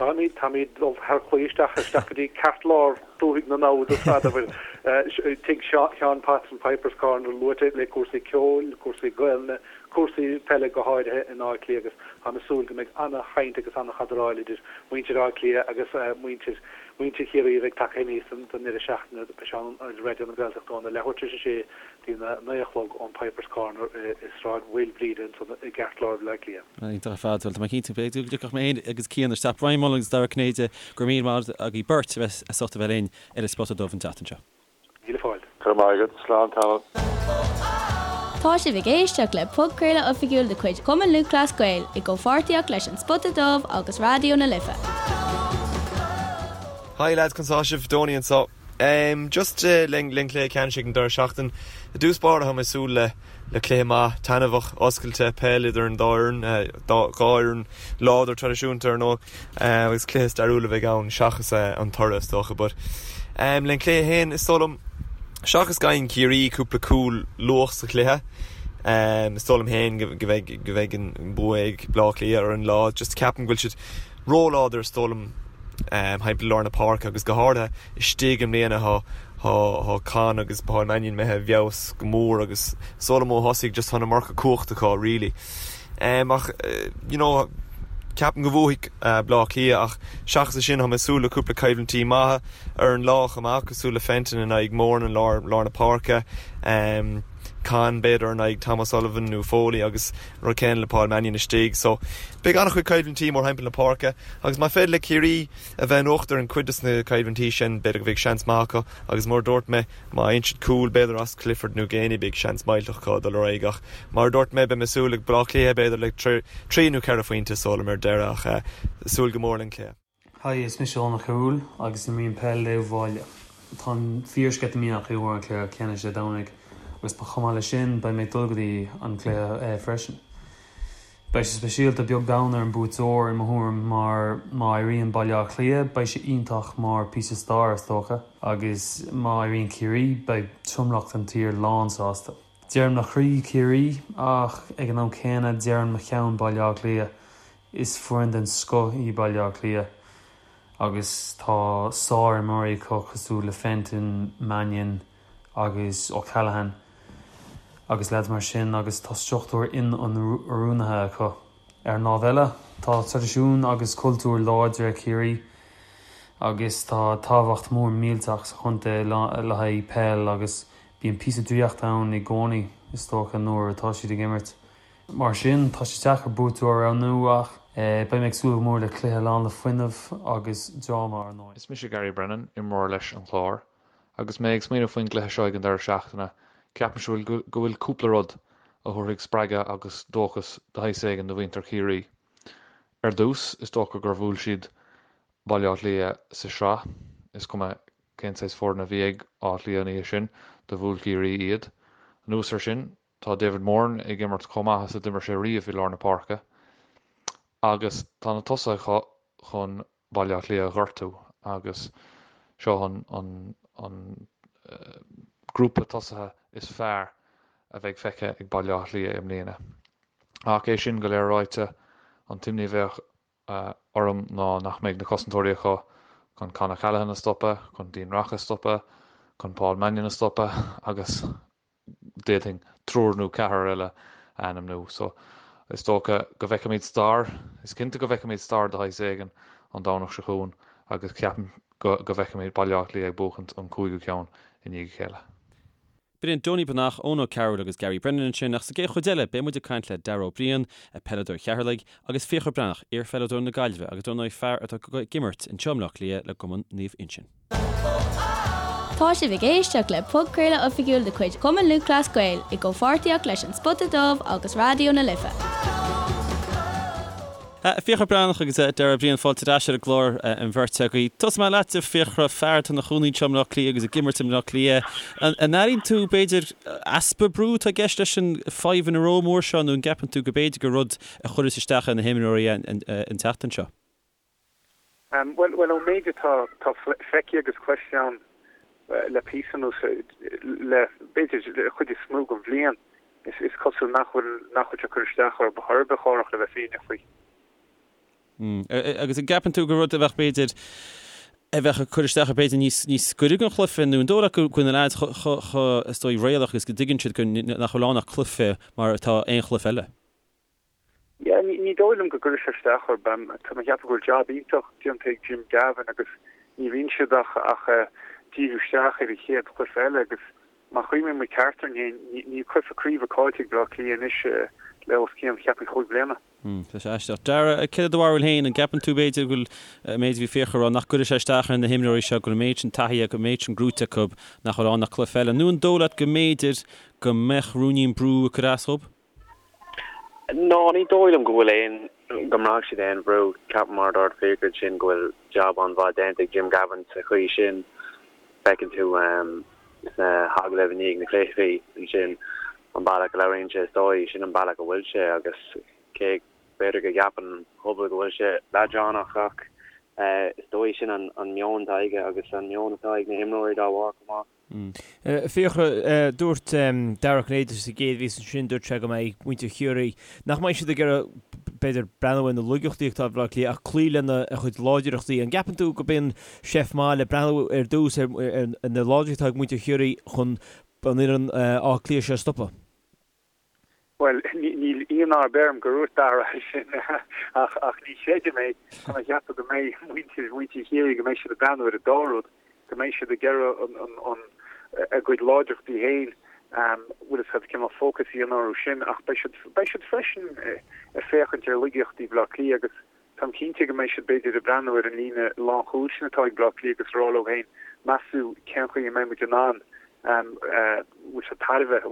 C: Táimid, táimid dul thar claí isteach, isteach go dtí ceartlár dúthaigh na namhad ar fad, abair, tigh Sheáin Potts an Pipers Corner luaite le cúrsaí ceoil, cúrsaí Gaelainne, cúrsaí peile go háirithe in Áth Cliath agus táim ag súil go mbeidh ana-chaint agus ana-chadaráil idir muintir Átha Cliath agus muintir, muintir Chiarraí a bheidh tagtha aníos don deireadh seachtaine. Beidh sé ann ar Raidió na Gaeltachta óna leathuair tar éis a sé dtí a 9 a chlog ón Pipers Corner i Sráid Mhaoilbhríde ansan i gceartlár Bhaile Átha Cliath.
A: Iontach ar fad. Bhuel, tá mé cinnte go dtiocfadh mé féin agus Cian isteach. Brian Mullins agus Dara Ó Cinnéide, go raibh míle maith agaibh beirt a bheith as ucht a bheith linn ar an Spota Dubh an tseachtain seo.
C: Míle fáilte.
D: Go raibh maith agat. Slán tamall.
B: Tá sibh ag éisteacht le podchraoladh oifigiúil de chuid Chumann Lúthchleas Gael i gcomhpháirtíocht leis An Spota Dubh agus Raidió na Life.
F: Hi lads, conas tá sibh? Donie anseo. Em, just len len cluiche ceannais ag an deireadh seachtain. I dtús báire tá mé ag súil le le cluiche maith, taitneamhach, oscailte, peil idir an dá fhoireann, dá dhá fhoireann láidir traidisiúnta ar ndóigh, agus cluiche stairiúil a bheidh ann seachas an toradh is dócha. But em, len cluiche féin is dóigh liom seachas go bhfaigheann Ciarraí cúpla cúl luath sa chluiche, em, is dóigh liom féin go go bheidh go bheidh an bua ag Bleá Cliath ar an lá. Just ceapaim go bhfuil siad róláidir is dóigh liom thimpeall lár na páirce agus go háirithe istigh i mbliana tá tá Con agus Paul Mannion imithe i bhfeabhas go mór agus is dóigh liom ó thosaigh just tá an iomarca cumhacht acu really. Ach you know ceapaim go bhuafaidh Bleá Cliath ach seachas é sin tá mé ag súil le cúpla coimhlintí maithe ar an lá chomh maith cosúil le Fenton in aghaidh Moran in lár lár na páirce. Con b'fhéidir in aghaidh Tom O'Sullivan nó Foley agus an rud céanna le Paul Mannion istigh. So beidh an-chuid coimhlintí mórthimpeall na páirce agus má féidir le Ciarraí a bheith in uachtar in cuid des na coimhlintí sin b'fhéidir go bheidh seans maith acu agus mar a dúirt mé má fhaigheann siad cúl b'fhéidir as Clifford nó Geaney beidh seans millteach acu dul ar aghaidh ach mar a dúirt mé beidh mé ag súil ag Bleá Cliath b'fhéidir le trí nó ceithre phointe is dóigh liom ar deireadh ach súil go mór len cluiche.
G: Hi, is mise Eoin Ó Cearúil agus imrím peil le Uíbh Fhailí. Táim fíor-sceitimíneach faoi an cluiche ceannais Dé Domhnaigh agus chomh maith leis sin beidh mé ag dul go dtí an cluiche freisin. Beidh sé speisialta beag beann ar an buaiteoir i mo thuairim mar má éiríonn Baile Átha Cliath beidh sé iontach mar píosa stair is dócha agus má éiríonn Ciarraí beidh tromlach den tír lán sásta. Deireann mo chroí Ciarraí ach ag an am céanna deireann mo cheann Baile Átha Cliath. Is foireann den scoth í Baile Átha Cliath agus tá sár-imreoirí acu cosúil le Fenton, Mannion agus O'Callaghan agus leaids mar sin agus tá struchtúr inoiriúnaithe acu. Ar an lámh eile, tá traidisiún agus cultúr láidir ag Ciarraí agus tá tábhacht mór millteach sa chontae le haghaidh peil agus bíonn píosa draíochta ann i gcónaí is dócha nuair atá siad ag imirt. Mar sin, tá sé deacair buaiteoir a roghnú ach beidh mé ag súil go mór le cluiche lán le fuinneamh agus dráma, ar ndóigh.
H: Is mise Gary Brennan, imreoir leis an Chlár. Agus mé ag smaoineamh faoin gcluiche seo ag an deireadh seachtaine, ceapaimse go bhfuil cúpla rud a thabharfaidh spreagadh agus dóchas de shaghas éigin do mhuintir Chiarraí. Ar dtús, is dócha gur bhuail siad Baile Átha Cliath sa sraith, is cuma cén saghas foireann a bhí ag Áth Cliath an oíche sin, do bhuail Ciarraí iad. Anuas air sin, Tá David Moran ag imirt chomh maith is a d'imir sé riamh i lár na páirce agus tá na tosaithe acu chun Baile Átha Cliath a ghortú agus seo an an grúpa tosaithe is fearr a bheidh feicthe ag Baile Átha Cliath i mbliana. Ach é sin go léir ráite, an t-imní a bheadh. orm ná nach mbeidh na cosantóirí acu chun Con O'Callaghan a stopadh, chun Dean Rock a stopadh, chun Paul Mannion a stopadh agus d'fhéadfainn triúr nó ceathrar eile a ainmniú. So, is dócha go bhfeicfimid stair, is cinnte go bhfeicfimid stair de shaghas éigin an Domhnach seo chugainn agus ceapaim go bhfeicfimid Baile Átha Cliath ag buachaint an cúigiú ceann i ndiaidh a chéile.
A: B'in Donie Breathnach, Eoin Ó Cearúil agus Gary Brennan ansin ach sa gcéad chuid eile beidh muid ag caint le Dara Ó Briain, peileadóir Cheatharlaigh, agus Fiachra Breathnach, iar-pheileadóir na Gaillimhe agus dar ndóigh fear atá ag imirt anseo i mBleá Cliath le gCumann Naomh Uinseann.
B: Tá sibh ag éisteacht le podchraoladh oifigiúil de chuid Chumann Lúthchleas Gael i gcomhpháirtíocht leis An Spota Dubh agus Raidió na Life.
A: Fiachra Breathnach agus Dara Ó Briain, fáilte ar ais ar an gclár an bheirt agaibh. Tosóidh mé leat, a Fiachra, fear atá ina chónaí anseo i mBleá Cliath agus ag imirt i mBleá Cliath. An airíonn tú, b'fhéidir, easpa brú atá i gceist leis an five in a row mór seo nó an gceapann tú go b'fhéidir gur rud a chuirfeas isteach ar na himreoirí an tseachtain seo?
C: Bhuel, ón méid atá feicthe agus cloiste agam le píosa anuas, le b'fhéidir an chuid is mó den bhliain, is cosúil nach bhfuil nach bhfuil sé ag cur isteach orthu chor ar bith, a Chárthach, le bheith fírinneach faoi.
A: Agus an gceapann tú gur rud a bheadh b'fhéidir a bheadh ag cur isteach b'fhéidir níos níos gaire don chluiche nó an dóigh leat go bhfuil na leaids chomh is dóigh réalaíoch agus go dtuigeann siad go nach bhfuil ann ach cluiche mar atá aon chluiche eile?
C: Yeah, ní dóigh liom go gcuirfidh sé isteach orthu. Tá mé ag ceapadh go bhfuil jab iontach déanta ag Jim Gavin agus ní bhíonn siad ach ach díriú isteach ar an chéad chluiche eile agus má chuimhníonn muid ceart orainn féin, níl cluiche craoibhe caillte ag Bleá Cliath anois le os cionn, cheapfainn, chúig bliana.
A: Tá sé aisteach. Dara, céard é do bharúil féin? An gceapann tú b'fhéidir go bhfuil an méid a bhí Fiachra a rá nach gcuirfidh sé isteach ar na himreoirí seo, go bhfuil an méid sin taithí acu, an méid sin gnóite acu nach bhfuil ann ach cluiche eile? Nó an dóigh leat go mb'fhéidir go mbeadh ruainnín brú ag cur as dhóibh?
I: No, ní dóigh liom go bhfuil aon, go mbraithfidh siad aon bhrú. Ceapaim mar a dúirt Fiachra ansin go bhfuil jab an-mhaith déanta ag Jim Gavin sa chaoi sin. Feiceann tú sna hagallaimh i ndiaidh na cluichí ansin an bealach a labhraíonn sé is dóigh, sin an bealach a bhfuil sé agus cé b'fhéidir go gceapann an pobal go bhfuil sé leadránach ach is dóigh sin an meon atá aige agus an meon atá ag na himreoirí dá bharr chomh maith.
E: Fiachra, dúirt Dara Ó Cinnéide sa gcéad mhír ansin, dúirt sé go mbeidh muintir Chiarraí, nach mbeidh siad ag iarraidh, b'fhéidir, breathnú ar na laigeachtaí atá ag Baile Átha Cliath ach cloí lena chuid láidreachtaí. An gceapann tú gurb in seift maith le breathnú ar dtús ar na láidreachtaí atá ag muintir Chiarraí chun an fhoireann Átha Cliath seo a stopadh?
C: Bhuel, níl ionadh ar bith orm gur dhúirt Dara é sin ach ach ní chreidim é. Tá mé ag ceapadh go mbeidh muintir mhuintir Chiarraí, go mbeidh siad ag breathnú ar an dá rud, go mbeidh siad ag iarraidh an an an a gcuid láidreachtaí féin, bhfuil fhios agat, cineál fócas a dhéanamh orthu sin ach beidh siad beidh siad freisin ag féachaint ar laigeachtaí Bhaile Átha Cliath agus táim cinnte go mbeidh siad b'fhéidir ag breathnú ar an líne lánchúil sin atá ag Baile Átha Cliath agus ag rá leo féin, meas tú cén chaoi a mbeidh muid in ann bhfuil fhios agat tairbhe a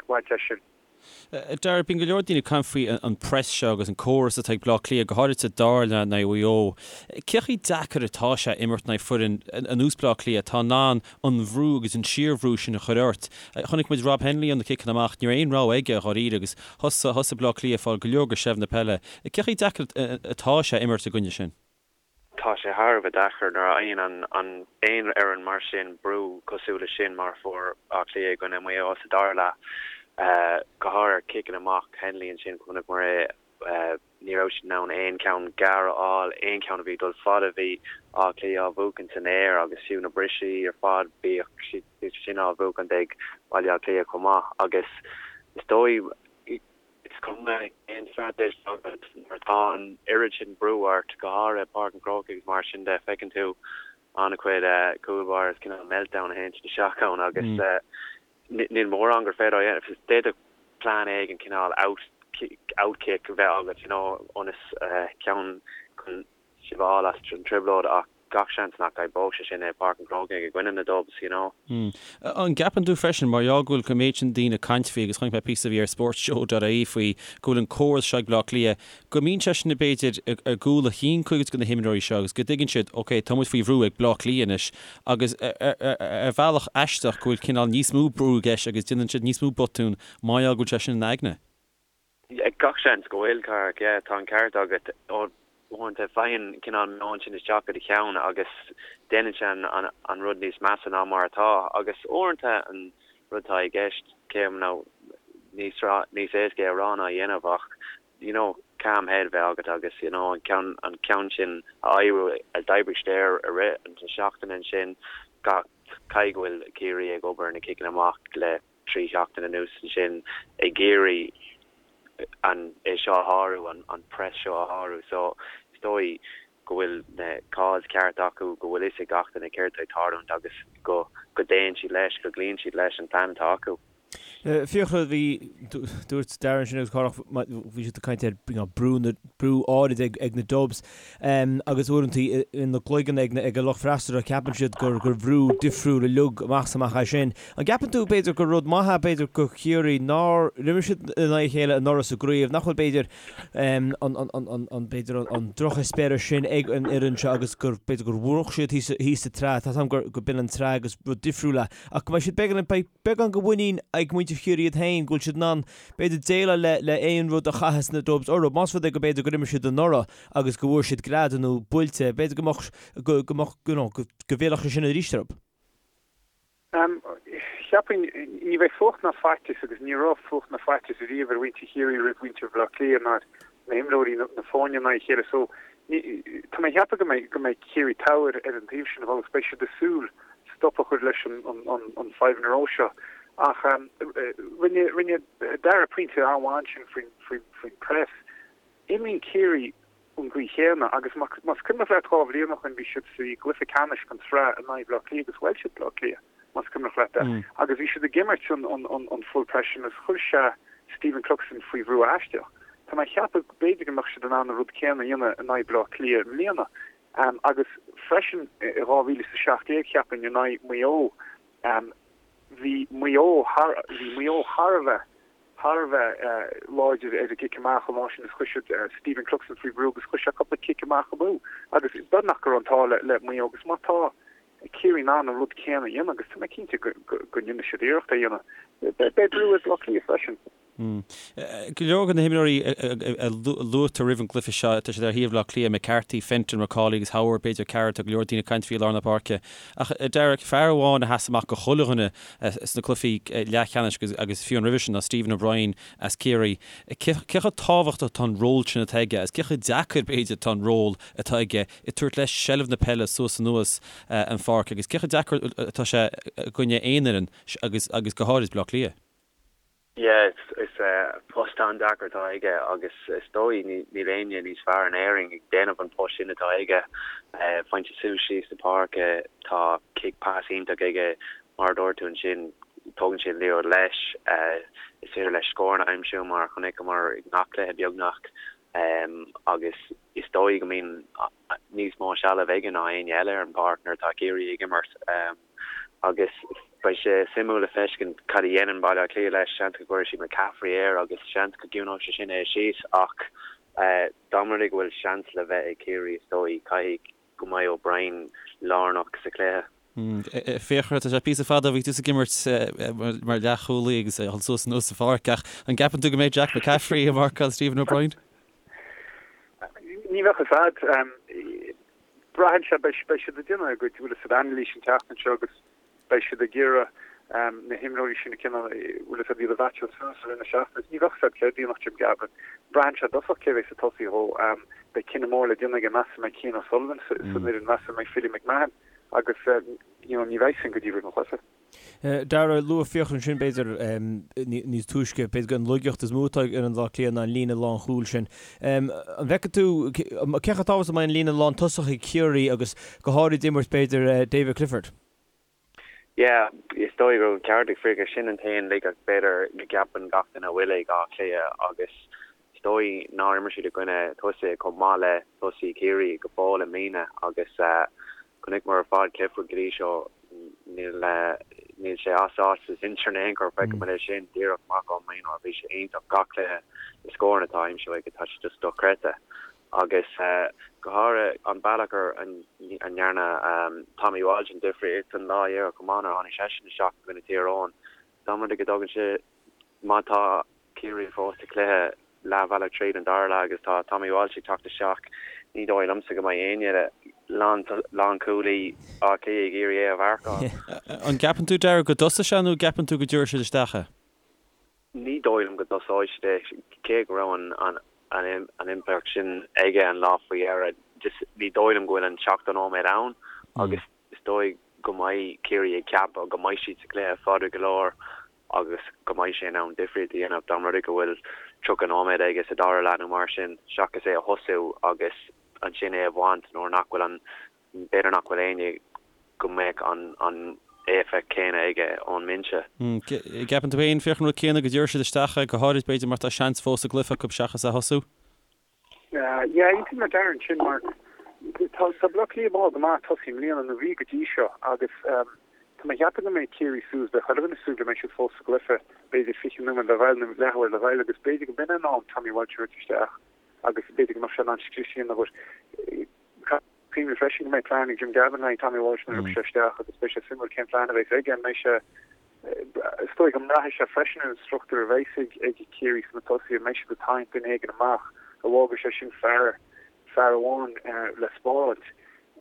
C: bhaint as sin.
A: Dara, bíonn go leor daoine ag caint faoi an press seo agus an córas atá ag Bleá Cliath, go háirithe dar le Mhaigh Eo. Cé chomh deacair atá sé imirt in aghaidh foireann ar nós Bleá Cliath atá in ann an bhrú agus an síorbhrú sin a chur ort? Chonaic muid Rob Hennelly ó na ciceanna amach, ní raibh aon rogha aige dháiríre agus thosaigh Bleá Cliath ag fáil go leor de sheilbh na peile. Cé chomh deacair atá sé imirt i gcoinne sin?
I: Tá sé thar a bheith deacair nuair a fhaigheann an aon fhoireann mar sin brú cosúil leis sin mar a fuair Áth Cliath i gcoinne Mhaigh Eo sa dara leath. Go háirithe ar ciceanna amach Hennelly ansin, chonaiceamar é, ní raibh siad in ann aon cheann gearr a fháil, aon cheann a bhí ag dul fada bhí Áth Cliath á bhuachaint san aer agus fiú na brisí ar fad bhíodh siad sin á bhuachaint ag Baile Átha Cliath chomh maith agus is dóigh Is cuma cén straitéis atá agat, nuair atá an oiread sin brú ort, go háirithe i bPáirc an Chrócaigh agus mar sin de, feiceann tú an-chuid cúl báire is cineál meltdown a théann siad isteach ann agus níl mórán gur féidir a dhéanamh. D'fhéadfadh plean éigin cineál out out kick a bheith agat, you know, ionas ceann chun sibh a fháil as an trioblóid ach gach seans nach oibreodh sé sin i Páirc an Chrócaigh i gcoinne na Dubs, you know.
A: An gceapann tú freisin, mar gheall go bhfuil an méid sin daoine ag caint faoi, agus chonaic mé píosa a bhí ar sportshow.ie faoi, go bhfuil an córas seo ag Bleá Cliath, go mbíonn sé sin b'fhéidir i gcúl a chinn cuid de na himreoirí seo agus go dtuigeann siad, ok, tá muid faoi bhrú ag Bleá Cliath anois agus ar bhealach aisteach go bhfuil cineál níos mó brú i gceist agus déanann siad níos mó botún mar gheall go bhfuil sé sin ina n-aigne.
I: Gach seans go bhfuil, Cárthach, yeah, tá an ceart agat. Uaireanta faigheann cineál meon sin isteach i do cheann agus déanann sé an rud níos measa ná mar atá. Agus uaireanta an rud atá i gceist, cé nó níos níos éasca é a rá ná a dhéanamh ach you know. Calm head a bheith agat agus you know an ceann an ceann sin a oibriú a d'oibrigh siad air i rith na seachtaine ansin gach caithfidh go bhfuil Ciarraí ag obair ar na ciceanna amach le 3 sheachtain anuas ansin ag iarraidh an é seo a shárú an an press seo a shárú so is dóigh go bhfuil na calls ceart acu go bhfuil fhios ag gach duine céard atá ag tarlúint agus go go dtéann siad leis go gcloíonn siad leis an plean atá acu.
E: Fiachra, bhí, dúirt Darragh ansin agus Cárthach, bhí siad ag caint ar brú, brú áirid ag na Dubs agus uaireanta ina gcloigeann ag ag an lucht freasúra ceapann siad gur gur bhrú difriúil uilig amach is amach é sin. An gceapann tú b'fhéidir gur rud maith é b'fhéidir do Chiarraí nár imir siad in aghaidh a chéile anuraidh sa gcraobh, nach bhfuil b'fhéidir an an b'fhéidir an drocheispéireas sin ag an fhoireann seo agus gur b'fhéidir gur mhúch siad thíos thíos sa tsraith, tá a fhios agam gur go b'in an tsraith agus rud difriúil é ach go mbeidh siad beagán beidh beagán de mhuinín ag muintir Chiarraí iad féin go bhfuil siad in ann, b'fhéidir, déileáil le le aon rud a chaitheas na Dubs orthu. Más rud é go b'fhéidir gur imir siad anuraidh agus go bhfuair siad greadadh nó buailte, b'fhéidir go mbeadh, go go mbeadh, you know, go go bhfillfeadh sé sin arís orthu.
C: Cheapfainn, ní bheidh fuacht ná faitíos agus ní raibh fuacht ná faitíos riamh ar mhuintir Chiarraí roimh mhuintir Bhaile Átha Cliath ná ar na himreoirí na foirne in aghaidh a chéile so tá mé ag ceapadh go mbeidh go mbeidh Ciarraí togha ar an taobh sin agus beidh siad ag súil stop a chur leis an an five in a row seo ach rinne rinne Darragh pointe an-mhaith ansin faoin faoin faoin press. Imríonn Ciarraí an gcaoi chéanna agus más cuimhneach leat 2 bhliain ó shin bhí siad sa gcluiche ceannais den tsraith in aghaidh Bhaile Átha Cliath agus bhuail siad Baile Átha Cliath más cuimhneach leat é agus bhí siad ag imirt an an full press sin agus chuir sé Stephen Cluxton faoi bhrú aisteach. Tá mé ag ceapadh b'fhéidir go mbeadh siad in ann an rud céanna a dhéanamh in aghaidh Baile Átha Cliath i mbliana agus freisin i 2017 cheapfainn in aghaidh Maigh Eo bhí Maigh Eo thar bhí Maigh Eo thar a bheith thar a bheith láidir ar an gcic amach an lá sin agus chuir siad Stephen Cluxton faoi bhrú agus chuir sé cúpla cic amach amú agus beagnach go raibh an t-ádh le Maigh Eo agus má tá Ciarraí in ann an rud céanna a dhéanamh agus tá mé cinnte go ndéanfaidh siad iarracht é a dhéanamh, beidh brú ar Bhaile Átha Cliath freisin.
A: Go leor de na himreoirí a luaitear roimh an gcluiche seo, tá siad ar thaobh Bhaile Átha Cliath, McCarthy, Fenton, McAuley agus Howard, b'fhéidir Carroll, tá go leor daoine ag caint faoi i lár na páirce. Ach a Darragh, fear amháin a sheas amach do chuile dhuine sna cluichí leathcheannais agus fiú an roimhe sin ná Stephen O'Brien as Ciarraí. Cé chomh tábhachtach atá an ról sin atá aige agus cé chomh deacair, b'fhéidir, atá an ról atá aige ag tabhairt leis seilbh na peile suas anuas an pháirc agus cé chomh deacair atá sé i gcoinne aon fhoireann agus go háirid Baile Átha Cliath?
I: Yeah, is post an-deacair atá aige agus is dóigh níl éinne níos fearr in Éirinn ag déanamh an post sin atá aige. Faigheann sé suas síos na páirce, tá cic pas iontach aige, mar a dúirt tú ansin, tógann sé an liathróid leis, is féidir leis scóranna a aimsiú mar a chonaiceamar i ngach cluiche beagnach agus is dóigh go mbíonn níos mó sealbh aige ná éinne eile ar an bpáirc nuair atá Ciarraí ag imirt. Agus beidh sé suimiúil le feiscint cad a dhéanann Baile Átha Cliath leis. Seans go gcuirfidh siad McCaffrey air agus seans go gciúnóidh sé sin é síos ach dá mba rud é go bhfuil seans le bheith ag Ciarraí is dóigh caithfidh go mbeidh O'Brien lárnach sa chluiche.
A: Fiachra, tá sé píosa fada ó bhí tusa ag imirt mar leathchúlaí agus ag dul suas anuas sa pháirc ach an gceapann tú go mbeidh Jack McCaffrey ag marcáil Stephen O'Brien?
C: Ní bheadh fhios a'd. Braitheann sé, beidh siad ag déanamh a gcuid, bhfuil fhios a'd, anailís an tseachtain seo agus beidh siad ag iarraidh na himreoirí sin a cineál, bhfuil fhios a'd, iad a mheaitseáil suas i rith na seachtaine. Ní bheadh fhios a'd céard a dhéanfadh Jim Gavin. Braitheann sé i dtosach cé bheidh ag tosaí dhó. Beidh cinneadh mór le déanamh aige, meas an mbeidh Cian O'Sullivan san fhoireann, meas an mbeidh Philly McMahon agus you know ní bheidh sin go dtí roimh an chluiche.
E: Darragh, luaigh Fiachra ansin, b'fhéidir, níos túisce, b'fhéidir an laigeacht is mó atá ag fhoireann Bhaile Átha Cliath ná an líne lánchúil sin. An bhfeiceann tú, cé chomh tábhachtach is a mbeidh an líne lántosach ag Ciarraí agus go háirid imirt, b'fhéidir, David Clifford?
I: Yeah, is dóigh go raibh an ceart ag Fiachra, sin an t-aon laigeacht b'fhéidir go gceapann gach duine a bhfuil ag Áth Cliath agus is dóigh nár imir siad i gcoinne tosaithe chomh maith le tosaí Chiarraí go fóill i mbliana agus Chonaiceamar ar fad Clifford go dtí seo, níl níl sé as áit sa sinsir in aon chor, feicimid é sin díreach amach ón mionúr, bhí sé iontach gach cluiche, na scóranna atá á aimsiú aige, tá sé just dochreidte. Agus go háirithe an bealach ar a ndearna Tommy Walsh an difríocht an lá dheireadh chomh maith nuair a tháinig seisean isteach i gcoinne Thír Eoghain, dá mba rud é go dtugann sé, má tá Ciarraí fós sa chluiche leathbhealach tríd an dara leath agus tá Tommy Walsh ag teacht isteach. Ní dóigh liomsa go mbeidh éinne lánchúlaí Átha Cliath ag iarraidh é a mharcáil.
A: An gceapann tú, Darragh, go dtosóidh sé nó an gceapann tú go dtabharfaidh siad isteach é?
I: Ní dóigh liom go dtosóidh siad é, cé go raibh an. an impleacht sin aige an lá faoi dheireadh. Just ní dóigh liom go bhfuil an 70 nóiméad ann agus is dóigh go mbeidh Ciarraí ag ceapadh go mbeidh siad sa gcluiche fada go leor agus go mbeidh sé in ann difríocht a dhéanamh dá mba rud é go bhfuil 30 nóiméad aige sa dara leath nó mar sin seachas é a thosú agus ansin é a bhaint nuair nach bhfuil an B'fhéidir nach bhfuil éinne go mbeadh an éifeacht chéanna aige ón mbinse.
A: Gceapann tú féin, Fiachra, an rud céanna, go dtabharfaidh siad isteach é, go háirid b'fhéidir mar tá seans fós sa gcluiche acu seachas é a thosú?
C: Yeah, aontaím le Darren ansin mar tá tá Bleá Cliath mall go maith ag tosaí i mbliana nó bhí go dtí seo agus tá mé ag ceapadh go mbeidh Ciarraí suas, beidh chuile dhuine ag súil go mbeidh siad fós sa gcluiche, b'fhéidir 20 nóiméad le ghoil nó leathuair le ghoil agus b'fhéidir go mb'in an am Tommy Walsh a thabhairt isteach agus b'fhéidir go mbeadh sé in ann scrios a dhéanamh but Cuimhnigh freisin go mbeidh plean ag Jim Gavin le haghaidh Tommy Walsh nuair a thiocfaidh sé isteach agus beidh sé suimiúil cén plean a bheas aige. An mbeidh sé, is dóigh go mbraithfidh sé freisin ar an struchtúr a bheas ag ag Ciarraí sna tosaithe, an mbeidh siad ag tarraingt duine éigin amach, an bhfágfaidh sé sin fear, fear amháin le spáráilt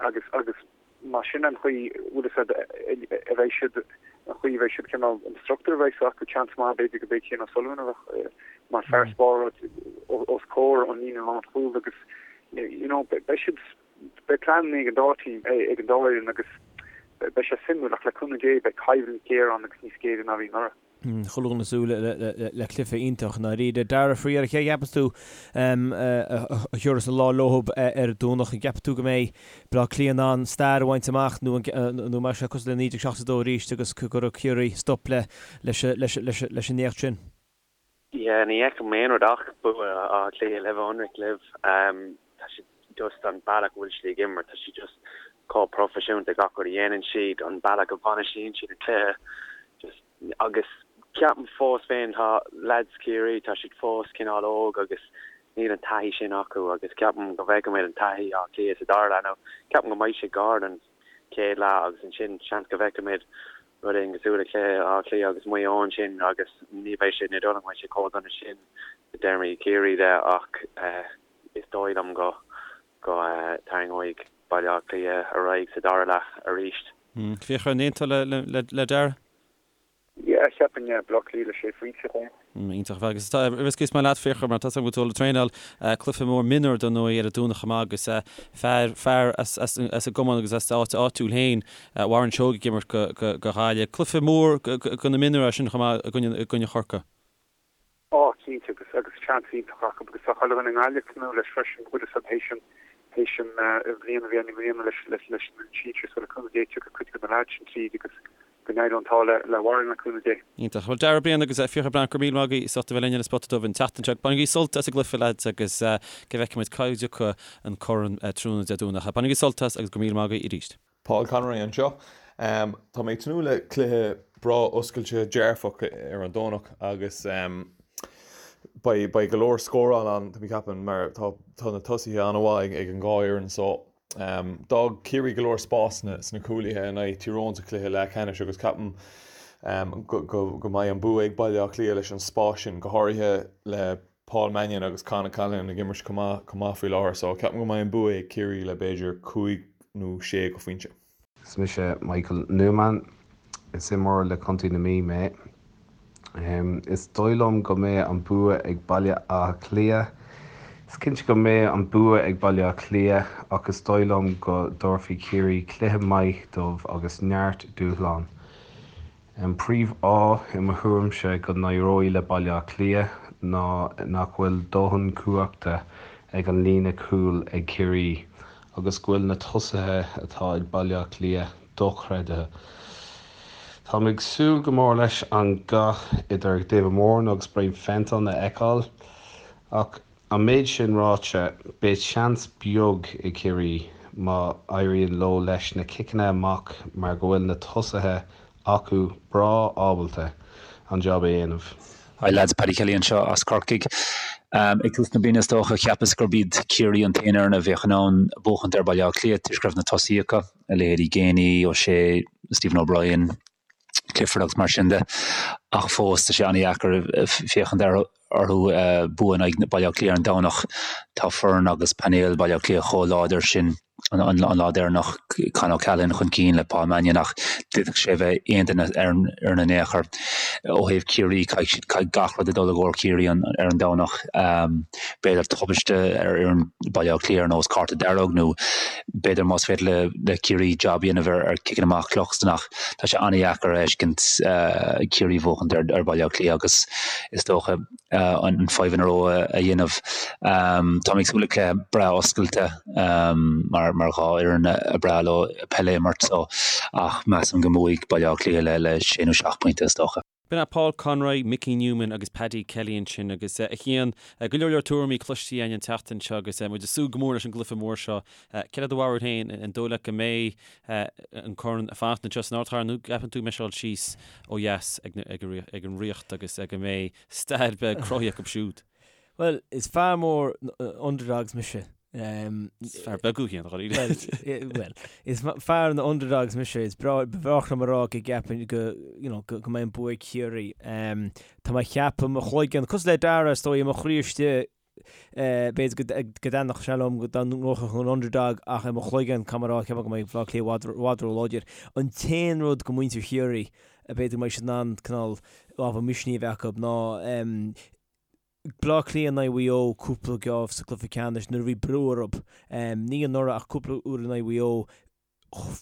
C: agus agus má sin an chaoi bhfuil fhios a'd a bheidh siad, an chaoi a bheidh siad cineál, an struchtúr a bheas acu, seans maith b'fhéidir go mbeidh Cian O'Sullivan a bheadh mar fear spáráilt os comhair an líne lánchúil agus you know, beidh siad, beidh pleananna ag an dá team, ag an dá fhoireann agus beidh sé suimiúil ach le cúnamh Dé beidh coimhlint ghéar ann agus níos géire ná a bhí anuraidh.
E: Chuile dhuine ag súil le cluiche iontach i ndáiríre. Darragh, faoi dheireadh, cé a cheapas tú a thabharfas an lá leothab ar an Domhnach? An gceapann tú go mbeidh Baile Átha Cliath in ann stair a bhaint amach nó an mbeidh sé cosúil le 1972 arís agus go gcuirfidh Ciarraí stop leis an éacht sin?
I: Yeah, ní fheicim aon rud ach bua Átha Cliath le bheith ionraic libh. Tá siad just an bealach a bhfuil siad ag imirt, tá siad just chomh proifisiúnta gach rud a dhéanann siad, an bealach a bhainistíonn siad an cluiche, just agus ceapaim fós féin tá lads Chiarraí, tá siad fós cineál óg agus níl an taithí sin acu agus ceapaim go bhfeicfimid an taithí Átha Cliath sa dara leath. Now ceapaim go mbeidh sé gar don chéad leath agus ansin seans go bhfeicfimid rud éigin cosúil le cluiche Átha Cliath agus Maigh Eo ansin agus ní bheidh sé, ní dóigh liom go mbeidh sé chomh dona sin i dtéarmaí Chiarraí de ach is dóigh liom go go dtarraingeoidh Baile Átha Cliath ar aghaidh sa dara leath arís.
A: Fiachra, an aontófá le Darragh?
C: Yeah, cheapfainn, yeah, Baile Átha Cliath le sé phointe.
A: Iontach ar fad. Agus tá riosca is maith leat, Fiachra, mar tá 's agam go bhfuil tú ag traenáil cluiche mór mionúr dar ndóigh ar an Domhnach chomh maith agus fear, fear as, as, as an gcumann agus as d'áit áitiúil féin, Warren Seoige ag imirt go, go, go Ghaillimh. Cluiche mór go, go, go na mionúir é sin chomh maith i gcoinne, i gcoinne Chorcaí.
C: Á, cinnte, agus, agus seans iontach acu agus tá chuile dhuine i nGaillimh ag tnúth leis freisin, bhfuil 'fhios a'd théis an, théis an bhliain a bhí ann i mbliana leis, leis, leis an sinsir so le cúnamh Dé tiocfaidh cuid de na leaids sin tríd agus Go n-éireoidh an t-ádh le Warren le cúnamh Dé.
A: Iontach. Bhuel, Darragh Ó Briain agus Fiachra Breathnach, go raibh míle maith agaibh as ucht a bheith linn ar an Spota Dubh an tseachtain seo. Bainigí sult as an gcluiche, lads, agus go bhfeicfidh muid cá dtiocfaidh an corn tráthnóna Dé Domhnaigh. Bainigí sult as agus go raibh míle maith agaibh arís.
F: Paul Conroy anseo. Tá mé ag tnúth le cluiche breá oscailte dearfach ar an Domhnach agus beidh beidh go leor scóráil ann, tá mé ag ceapadh, mar tá tá na tosaithe an-mhaith ag an dhá fhoireann so D'fhág Ciarraí go leor spásanna sna cúlaithe in aghaidh Tír Eoghain sa chluiche leathcheannais agus ceapaim go mbeidh an bua ag Baile Átha Cliath leis an spás sin, go háirithe le Paul Mannion agus Con O'Callaghan ag imirt chomh maith faoi láthair. So ceapaim go mbeidh an bua ag Ciarraí le b'fhéidir cúig nó sé go phointe.
J: Is mise Michael Newman. Is imreoir le Contae na Mí mé. Is dóigh liom go mbeidh an bua ag Baile Átha Cliath. Is cinnte go mbeidh an bua ag Baile Átha Cliath ach is dóigh liom go dtabharfaidh Ciarraí cluiche maith dóibh agus neart dúshlán. An príomhfháth i mo thuairimse go n-éireoidh le Baile Átha Cliath ná nach bhfuil dóthain cumhachta ag an líne cúil ag Ciarraí agus go bhfuil na tosaithe atá ag Baile Átha Cliath dochreidthe. Táim ag súil go mór leis an gcath idir David Moran agus Brian Fenton a fheiceáil ach an méid sin ráite, beidh seans beag ag Ciarraí má éiríonn leo leis na ciceanna amach mar go bhfuil na tosaithe acu breá ábalta an jab a dhéanamh.
K: Hi lads, Paddy Kelly anseo as Corcaigh. Ag tús na bliana is dócha, cheapas gurb iad Ciarraí an t-aon fhoireann a bheadh in ann buachaint ar Bhaile Átha Cliath toisc go raibh na tosaithe acu. a leithéidí Geaney, O'Shea, Stephen O'Brien, Clifford agus mar sin de. Ach fós, tá sé an-dheacair féachaint orthu bua in aghaidh Baile Átha Cliath ar an Domhnach. Tá foireann agus painéal Baile Átha Cliath chomh láidir sin. an lá deireanach, Con O'Callaghan chun cinn le Paul Mannion ach d'fhéadfadh sé a bheith aon duine ar an fhoireann in aon chor. Ó thaobh Ciarraí, caithfidh siad, caithfidh gach rud a dul i gcomhair Chiarraí ar an Domhnach. B'fhéidir tubaiste ar fhoireann Baile Átha Cliath ar nós cárta dearg nó b'fhéidir más féidir le Ciarraí jab a dhéanamh ar ciceanna amach Cluxton ach tá sé an-dheacair a fheiscint Ciarraí a bhuachaint ar Baile Átha Cliath agus is dócha an five in a row a dhéanamh. Tá mé ag súil le cluiche breá oscailte mar mar dhá fhoireann ar breá leo peil a imirt so ach measaim go mbuafaidh Baile Átha Cliath le sé nó seacht bpointe is dócha.
A: B'in é Paul Conroy, Mickey Newman agus Paddy Kelly ansin agus a Chian, go leor leor tuairimí cloiste againn an tseachtain seo agus muid ag súil go mór leis an gcluiche mór seo. Céard é do bharúil féin, an dóigh leat go mbeidh an corn ag fanacht anseo san ardchathair nó gceapann tú go mbeidh sé ag dul síos ó dheas ag an Ríocht agus go mbeidh stair beag cruthaithe acu siúd?
E: Bhuel, is fear mór underdogs mise.
A: Is fear beag thú féin,
E: dháiríre. Bhuel, is fear na underdogs mise. Is breá liom a rá go gceapaim go, you know, go mbeidh an bua ag Ciarraí. Tá mé ag ceapadh i mo chloigeann, cosúil le Dara, is dóigh, i mo chroí istigh, b'fhéidir go dtaitneodh sé liom dá ngnóthódh an underdog ach i mo chloigeann, caithfidh mé a rá, ceapaim go mbeidh Baile Átha Cliath i bhfad, i bhfad ró-láidir. An t-aon rud do mhuintir Chiarraí, b'fhéidir go mbeidh siad in ann cineál ábhar misnigh a bheith acu ná Bleá Cliath in aghaidh Mhaigh Eo cúpla geábh sa gcluiche ceannais nuair a bhí brú orthu. Ní anuraidh ach cúpla uair in aghaidh Mhaigh Eo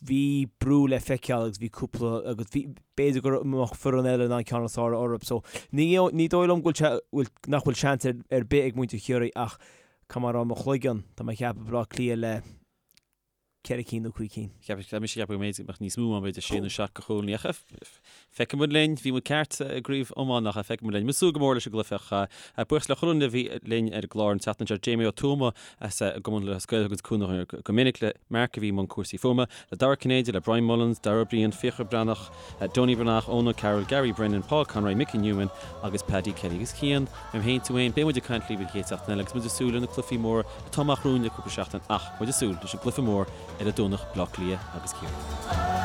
E: bhí brú le feiceáil agus bhí cúpla agus bhí b'fhéidir go mbeadh foireann eile in ann ceann is fearr orthu. So ní ní dóigh liom go bhfuil sé bhfuil nach bhfuil seans ar ar bith ag muintir Chiarraí ach caithfidh mé a rá i mo chloigeann tá mé ag ceapadh Bleá Cliath le 4 cinn nó 5 cinn.
A: Cheap mise cheap go mb'fhéidir go mbeadh níos mó ann, b'fhéidir sé nó seacht de chúilíní. Ach feicfidh muid linn, bhí muid ceart i gcraobh iomána ach feicfidh muid linn. Muid ag súil go mór leis an gcluiche ach buíochas le chuile dhuine a bhí linn ar an gclár an tseachtain seo, Jamie Ó Tuama as an gCumann Lúthchleas Gael a thuganns cúnamh go minic, le Mark a bhí i mbun cúrsaí fuaime, le Dara Cinnéide, le Brian Mullins, Dara Ó Briain, Fiachra Breathnach, Donie Breathnach, Eoin O'Carroll, Gary Brennan, Paul Conroy, Mickey Newman agus Paddy Kelly. Agus Cian, mé féin, tú féin, beidh muid ag caint libh an chéad seachtain eile agus muid ag súil le na cluichí móra atá amach romhainn le cúpla seachtain ach muid ag súil leis an gcluiche mór ar an Domhnach, Baile Átha Cliath agus Ciarraí.